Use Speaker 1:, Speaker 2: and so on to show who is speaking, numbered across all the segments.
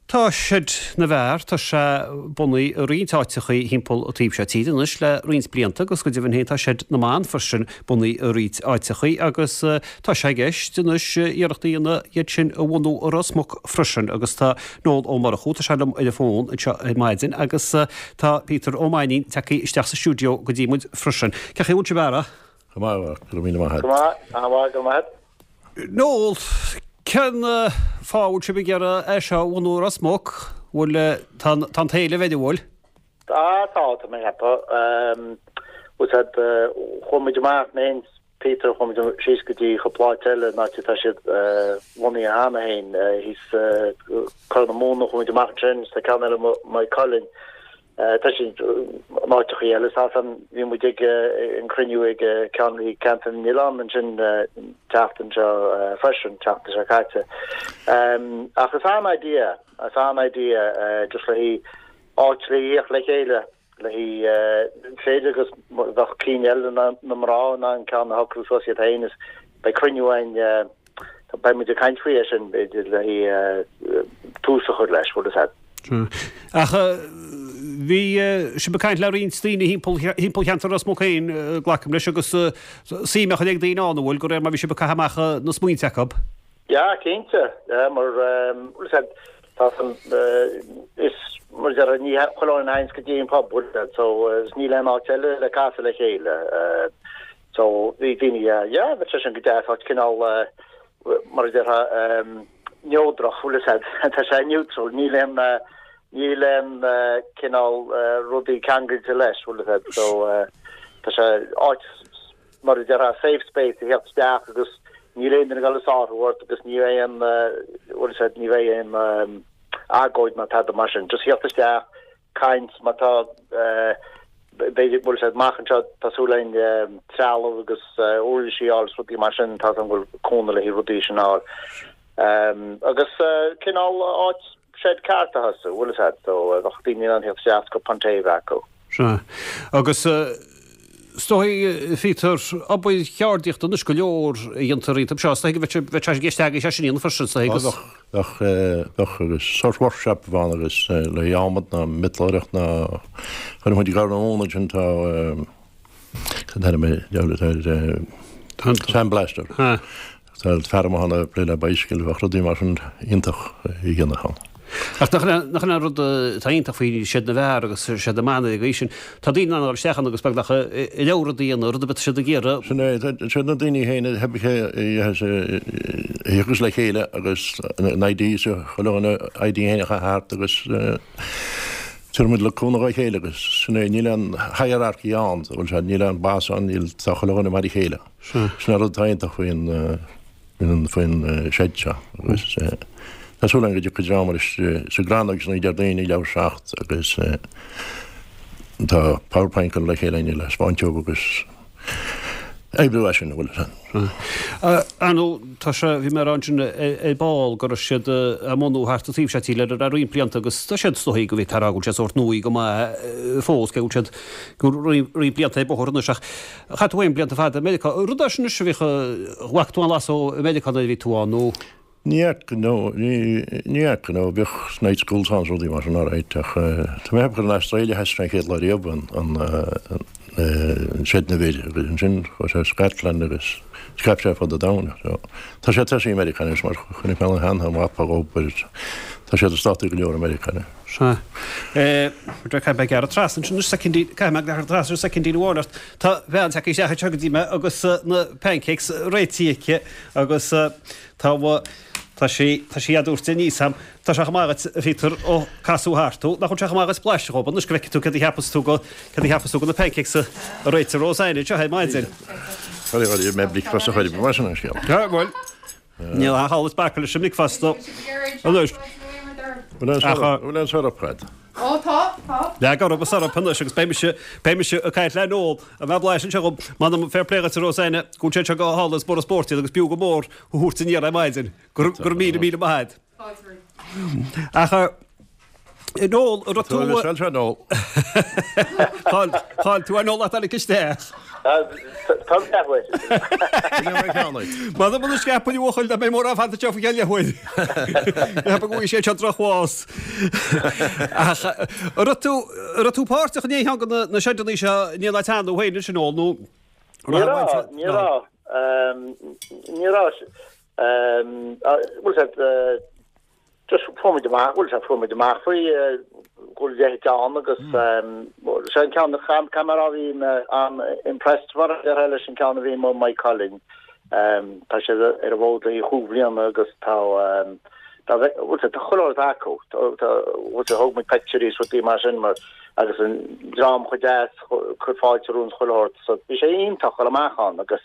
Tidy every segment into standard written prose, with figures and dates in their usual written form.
Speaker 1: Tá Seid na bhFear, tá sé bunaithe i roinnt áiteachaí thimpeall an taobh seo tíre anois le roinnt blianta agus go deimhin féin tá Seid na mBan freisin bunaithe i roinnt áiteachaí agus tá sé i gceist anois iarracht a dhéanamh iad sin a bhunú i Ros Muc freisin agus tá Noel Ó Murchú, tá sé liom ar an bhfón anseo ar maidin agus tá Peter Ó Mainnín tagtha isteach sa stiúideo go dtí muid freisin. Cén chaoi a bhfuil sibh a fheara?
Speaker 2: Go maith, go raibh míle maith
Speaker 3: agat. Go maith, an-mhaith, go raibh maith agat.
Speaker 1: Noel, cén fáth a bhfuil sibh ag iarraidh é seo a bhunú i Ros Muc? Bhfuil, tá an t-éileamh air, an bhfuil?
Speaker 3: Tá, tá, tá mé ag ceapadh. Bhfuil a fhios agat, chuaigh muid amach, mé féin is Peter, chuaigh muid síos go dtí cúpla áit eile, an áit atá siad bunaithe cheana féin, thíos Corr na Móna, chuaigh muid amach ansin, is tá ceann eile i Maigh Cuilinn. Tá siad in áiteachaí eile is ansan bhí muid ag an cruinniú ag ceann Ceantar na nOileán ansin an tseachtain seo freisin, tseachtain seo caite. Ach is an-idea, is an-idea just le haghaidh áit le thíocht le chéile, le haghaidh b'fhéidir go mbeadh cinn eile na mná in ann ceann a shocrú suas iad féin is beidh cruinniú againn Beidh muid ag caint faoi é sin, b'fhéidir, le haghaidh tús a chur leis, bhfuil a fhios agat.
Speaker 1: Ach bhí sibh ag caint le roinnt daoine thimpeall, thimpeall cheantar Ros Muc féin, glacaim leis, agus suim á chur ag daoine ann, an bhfuil, de réir mar bhí sibh ag caitheamh amach na smaointe acu?
Speaker 3: Yeah, cinnte. Yeah, mar, bhfuil a fhios agat, tá san, is, mar a déarfá, ní chuile dhuine a théanns go dtí an pub, bhfuil a fhios agat, so, is níl aon áit eile le casadh le chéile. So, bhí daoine, yeah, yeah, bheadh sé sin go deas, áit cineál, mar a déarfá, neodrach, bhfuil a fhios agat, tá sé neutral, níl aon, níl aon cineál rudaí ceangailte leis, bhfuil a fhios agat, so tá sé áit, mar a déarfá, safe space a theacht isteach agus níl aon duine ag dul ag sárú ort agus ní bheidh aon, bhfuil a fhios agat, ní bheidh aon agóid ná tada mar sin, just theacht isteach, caint, má tá, b'fhéidir, bhfuil a fhios agat, amach anseo, tá súil againn trealamh agus uirlisí a fháil is rudaí mar sin, tá a fhios agam go bhfuil cúnamh le haghaidh rudaí sin a fháil. Agus cineál áit shed ceart a thosú, bhfuil a fhios agat, so bheadh daoine in ann theacht isteach is cupán tae a bheith acu.
Speaker 1: Sea. Agus is dóigh, Peter, obair cheardaíochta anois go leor a dhéantar iontu seo, is dóigh go mbeadh sé i gceist agaibh é sin a dhéanamh freisin, is dóigh, agus.
Speaker 2: Bheadh, bheadh, bheadh agus sórt workshop a bheadh ann agus le haghaidh adhmad ná miotalóireacht ná chuir muid i gCorr na Móna ansin tá cad é mar gheall ar sandblaster. Tá fear amuigh ann ag plé le bicycle, bheadh rudaí mar sin iontach a dhéanamh ann.
Speaker 1: Ach nach in an rud atá iontach faoi Seid na bhFear agus Seid na mBan ar an gcaoi sin, tá daoine in ann a dhul isteach ann agus beagnach a leor rud a dhéanamh, rud ar bith atá siad ag iarraidh.
Speaker 2: Sin é, siad na daoine féin a thiocfas le chéile agus an idea seo, chuile dhuine idea féin a chaitheamh thart agus tabharfaidh muid le cúnamh dá chéile agus sin é, níl aon hierarchy ann, bhfuil sé, níl aon boss ann, níl, tá chuile dhuine mar a chéile. Sin an rud atá iontach faoin faoin shed seo agus tá súil agam go dtiocfaidh dream arís sa gCrannóg san Déardaoin ag leathuair tar éis a 7 agus tá PowerPoint curtha le chéile againn le spáint dóibh agus oibriú as sin, an bhfuil a fhios
Speaker 1: agat. Ar ndóigh, tá sé, bhí mé ag rá ansin ar ball go raibh siad á mbunú thart an taobh seo tíre le roinnt blianta agus tá siad is dóigh go bhféadfá a rá go bhfuil siad sórt nua go maith fós, cé go bhfuil siad go roinnt blianta ar bóthar anois ach Chaith tú féin blianta fada i Meiriceá. Rud é sin anois a bhíodh, bhfaca tú an-bhlas ó Mheiriceá nuair a bhí tú ann nó?
Speaker 2: Ní fhaca, no, ní fhaca, no, bhíodh night schools ann is rudaí mar sin alright ach tá mé ag ceapadh gur in Australia a thosaigh sé an chéad lá riamh an, an, an Seid na bhFir agus ansin chuaigh sé Scotland agus scaip sé ar fud an domhain so tá sé tosaithe i Meiriceá anois mar chonaic mé ann cheana mapa ag obair tá siad i státaí go leor i Meiriceá anois.
Speaker 1: Sea. Caithfidh mé gearradh trasna ansin anois soicindín, caithfidh mé gearradh trasna ar soicindín amháin ort. Tá bean tagtha isteach anseo go dtí mé agus na pancakes réitithe aici agus tá, tá sí, tá sí á dtabhairt aníos a'm. Tá sé chomh maith dhuit, a Phíotair, ó casadh thart thú. Nach bhfuil sé chomh maith dhuit blaiseadh dhóibh anois go bhfeicfidh tú céard a cheapas tú go, céard a cheapas tú go na pancakes a réitigh Roseanne anseo ar maidin.
Speaker 2: Sorry, bhí mé bricfeasta a chur i mar sin an
Speaker 1: scéal. Bhuel. Níl aon chall is bacadh leis an mbricfeasta anois.
Speaker 2: Bhfuil aon syrup agat?
Speaker 4: Ó tá, tá.
Speaker 1: Leag orthu an syrup anois agus beidh mise, beidh mise ag caint le Noel. An mbeadh blaiseadh anseo agam? M'anam fair play dhuit a Roseanne, go bhfuil sé anseo go hálainn is mór an spórt iad agus b'fhiú go mór a thabhairt aniar ar maidin. Go raibh míle míle maith agat. Ach Noel, an raibh tú...
Speaker 2: Tá sé Noel.
Speaker 1: Chaill tú ar Noel ach tháinig isteach.
Speaker 3: Tá leathuair.
Speaker 1: Mada muna scaipfidh a bhuachaill dá mbeidh mórán fanta anseo faoi cheann leathuair. Ceapaim go bhfaighidh sé seo drochbhás. Ach an raibh tú, an raibh tú páirteach in aon cheann de na seideanna seo in aon áit cheana thú féin ansin Noel nó?
Speaker 3: Ní raibh, ní raibh. Ní raibh. Bhfuil sé, Just fuair muid amach, bhuel sea, fuair muid amach faoi go bhfuil a leithéid ann agus sé an ceann, caithfidh mé a rá bhí mé an-impressed mar a déarfá leis an ceann a bhí i Maigh Cuilinn. Tá siad ar an bhfód le haghaidh chúig bhliana agus tá, tá, bhuel sea, tá chuile shórt acu. Tá, bhuel sea, thóg muid pictiúirí is rudaí mar sin mar agus an dream chomh deas, cur fáilte romhainn is chuile shórt. So bhí sé iontach dul amach ann agus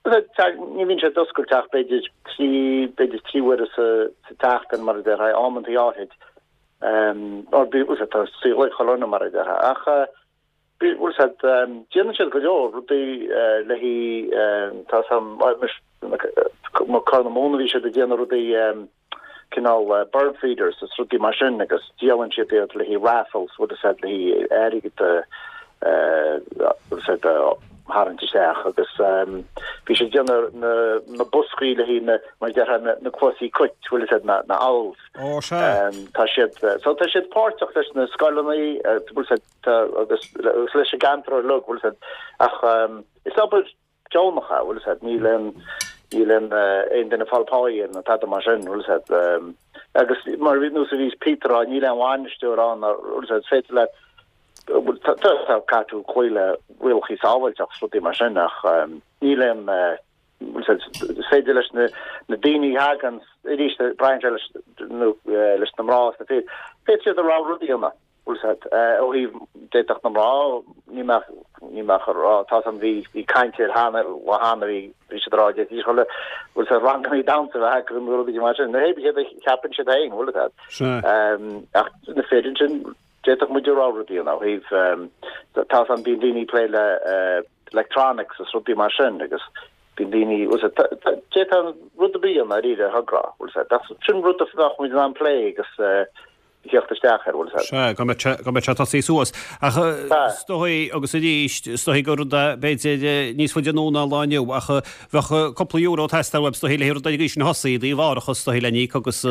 Speaker 3: Ní bhíonn sé oscailte ach b'fhéidir trí, b'fhéidir trí huaire sa tseachtain mar a déarfá, amantaí áithrid. Or bhí, bhfuil tá saol ag chuile dhuine mar a déarfá. Ach bhfuil siad, déanann siad go leor rudaí le haghaidh, tá sam, Corr na Móna bhí siad ag déanamh rudaí, cineál bird feeders is rudaí mar sin agus díolann siad iad le haghaidh raffles, bhfuil a fhios agat, le haghaidh airgead bhfuil a fhios agat, a tharraingt isteach agus bhí siad ag déanamh na na boscaí le haghaidh na, mar a déarfá, na na cluasaí cait, bhfuil a fhios agat, na na owls.
Speaker 1: Ó sea.
Speaker 3: Tá siad, so tá siad páirteach leis na scoileanna, bhfuil a fhios agat, agus leis an gceantar uilig, bhfuil a fhios agat, ach is obair deonach é, bhfuil a fhios agat, níl aon, níl aon, aon duine ag fáil páí air nó tada mar sin, bhfuil a fhios agat. Agus mar a nós a bhí Peter a rá, níl aon bhainisteoir ann, bhfuil a fhios agat, is féidir leat, bhuel, tá, tá, tá, caithfidh tú cloí le rialacha sábháilteachta is rudaí mar sin ach níl aon, bhfuil a fhios agat, is féidir leis na, na daoine a thagann, arís, braitheann sé leis, nó leis na mná is na fir, féadfaidh siad a rogha rud a dhéanamh. Bhfuil a fhios agat, ó thaobh, d'fhéadfadh na mná, ní mbeadh, ní mbeadh a rá, tá san, bhí, bhí caint air cheana, lá cheana, bhí, bhí siad a rá, d'fhéadfaidís chuile, bhfuil a fhios agat, ranganna damhsa a bheith acu nó rudaí mar sin, nó hé céard a cheapann siad féin, bhfuil a fhios agat.
Speaker 1: Sea.
Speaker 3: Ach na fir ansin, d'fhéadfadh muid a rogha rud a dhéanamh ó thaobh, tá san, bíonn daoine ag plé le electronics is rudaí mar sin agus bíonn daoine, bhfuil a fhios agat, d'fhéadfá rud ar bith a dhéanamh dáiríre, a thogra, bhfuil a fhios agat, ach sin rud a bheadh muid in ann plé agus, theacht isteach air, bhfuil a fhios agat.
Speaker 1: Sea, go mbeadh sé, go mbeadh sé ag tosaí suas. Ach is dóigh, agus arís, is dóigh gur rud é, b'fhéidir, níos faide anonn ná an lá inniu, ach bheadh cúpla euro ag teastáil uaibh, is dóigh, le rud ar an gcaoi sin a thosaí, i dtaobh árachas, is dóigh, le n-íoc agus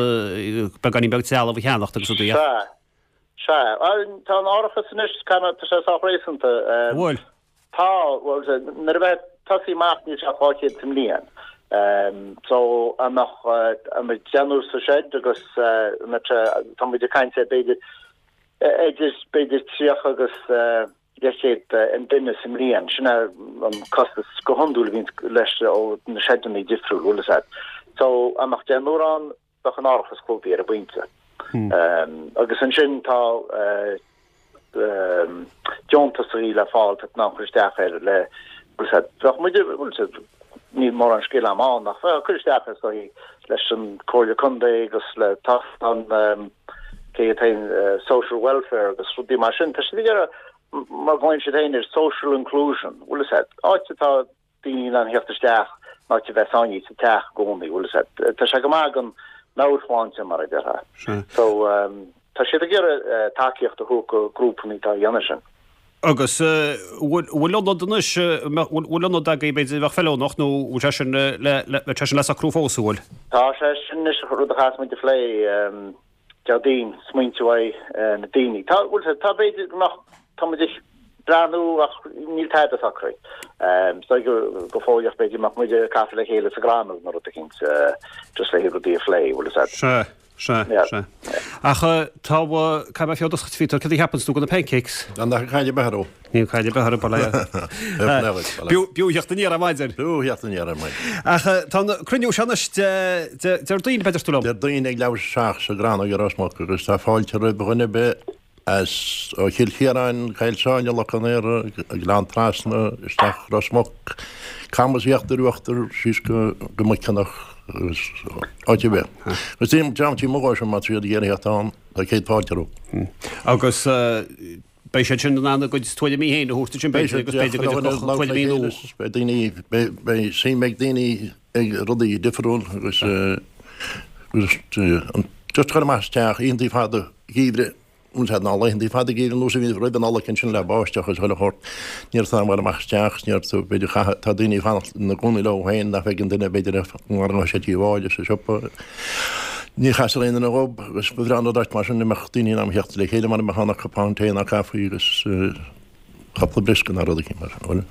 Speaker 1: beagáinín beag trealamh a cheannacht agus rudaí.
Speaker 3: Sea, sea. Tá an árachas anois, tá sé sách réasúnta.
Speaker 1: An bhfuil?
Speaker 3: Tá, bhuel, nuair a bheith tosaí amach níl sé ach 200 sa mbliain. So, an mbeadh, an mbeadh deichniúr sa shed agus an mbeadh sé, tá muid ag caint ar b'fhéidir, idir, b'fhéidir 30 agus leathchéad an duine sa mbliain. Sin é an costas go hiondúil a bhíonn leis ó na sheideanna difriúil, bhfuil a fhios agat. So, an mbeadh deichniúr ann, bheadh an árachas clúdaithe ar an bpointe. Agus ansin tá deontasaí le fáil tá tú in ann cur isteach air le bhfuil a fhios agat, bheadh muid, bhfuil a fhios agat, níl mórán scil agam ann ach bheadh cur isteach is dóigh leis an Comhairle Contae agus le tá an cé atá social welfare agus rudaí mar sin. Tá siad ag iarraidh mar glaonn siad féin ar social inclusion, bhfuil a fhios agat, áit atá daoine in ann theacht isteach in áit a bheith sáinnithe sa teach i gcónaí, bhfuil a fhios agat. Tá sé go maith don meabhairshláinte, mar a déarfá. So, tá siad ag iarraidh tacaíocht a thabhairt do grúpanna atá a dhéanamh sin.
Speaker 1: Agus bhfuil ionad anois, bhfuil ionad agaibh b'fhéidir a bheadh feiliúnach nó bhfuil sé sin le, bhfuil sé sin le socrú fós, an bhfuil?
Speaker 3: Tá sé sin anois rud a chaithfeas muid a phlé. Déardaoin, smaointe uaidh na daoine. Tá, bhfuil sé, tá b'fhéidir go mbeadh, tá muid ag breathnú ach níl tada socraithe. Is dóigh go, go fóilleach b'fhéidir go mbeadh muid ag casadh le chéile sa gCrannóg nó rud eicínt, just le rudaí a phlé, bhfuil a fhios agat.
Speaker 1: Sea, sea,
Speaker 3: Yeah.
Speaker 1: sea. Ach tá, caithfidh mé fios a Phíotair, cad a cheapanns tú de na pancakes?
Speaker 2: Gan nach caid ar bith orthu.
Speaker 1: Níl caid ar bith orthu, bail ó Dhia. B'fhiú theacht aniar ar maidin.
Speaker 2: B'fhiú theacht aniar ar maidin.
Speaker 1: Ach tá an cruinniú seo anois Déardaoin, a deir tú liom.
Speaker 2: Déardaoin ag leathuair tar éis a 7 sa gCrannóg i Ros Muc agus tá fáilte roimh dhuine ar bith as ó Chill Chiaráin, Coill Sáile, Loch an Iora, Gleann Trasna, isteach Ros Muc, Camas Íochtar Uachtar, síos go Muiceanach agus áit ar bith. Agus dream tí amuigh sin má tá siad ag iarraidh theacht ann. Tá céad fáilte
Speaker 1: rompu. Agus beidh siad sin in ann a gcuid tuairimí féin a thabhairt ansin b'fhéidir agus b'fhéidir go dtiocfadh tuairimí nua.
Speaker 2: Beidh daoine, beidh suim ag daoine ag rudaí difriúil agus agus just cur amach as teach, oícheantaí fada geimhridh. Bhfuil sé ná laethanta fada geimhridh ar nós a bhí roimh an Nollaig ansin le báisteach agus chuile shórt. Ní raibh tú in ann a ghabháil amach isteach, ní raibh tú, b'fhéidir, chaith, tá daoine ag fanacht ina gcónaí leo féin nach bhfeiceann duine, b'fhéidir, mara ngabhfaidh sé dtí an bhaile sa siopa. Ní chasfar aon duine dhób agus ba bhreá an rud áit mar sin a mbeadh daoine in ann a theacht le chéile mara mbeadh ann ach cupán tae ná caife agus cúpla briosca ná rud eicínt mar sin, bhfuil?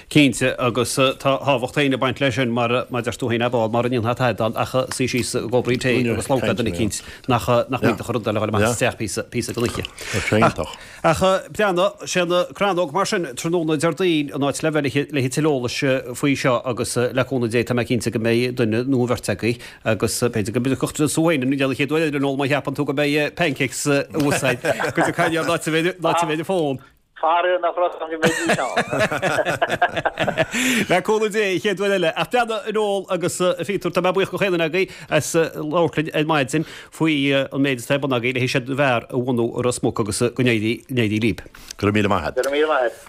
Speaker 1: Cinnte, agus tá tábhacht féin ag baint leis sin, mar a deir tú féin, a Phól, mara ndéanfá tada ann ach suí síos i gcupán tae agus labhairt le duine eicínt nach mbíodh rud eile a dhul amach isteach píosa, píosa den oíche.
Speaker 2: Tá sé iontach.
Speaker 1: Ach breathnaigh, sé an Crannóg mar sin, tráthnóna Déardaoin, an áit le bheith le tuilleadh eolais faoi seo agus le cúnamh Dé tá mé cinnte go mbeidh duine nó an bheirt agaibh agus b'fhéidir go dtiocfadh tú féin an chéad uair eile Noel má cheapann tú go mbeidh pancakes uasail go dtiocfaidh an áit a bheidh an fón.
Speaker 3: Faraor nach raibh ann go mbeidís ann.
Speaker 1: Le cúnamh Dé, an chéad uair eile. Ach breathnaigh, a Noel agus a Phíotair, tá mé buíoch go chaon duine agaibh as labhairt linn ar maidin faoi an méid atá ar bun agaibh le Seid na bhFear a bhunú i Ros Muc agus go n-éirí libh.
Speaker 2: Go raibh míle maith agat.
Speaker 3: Go raibh míle maith agat.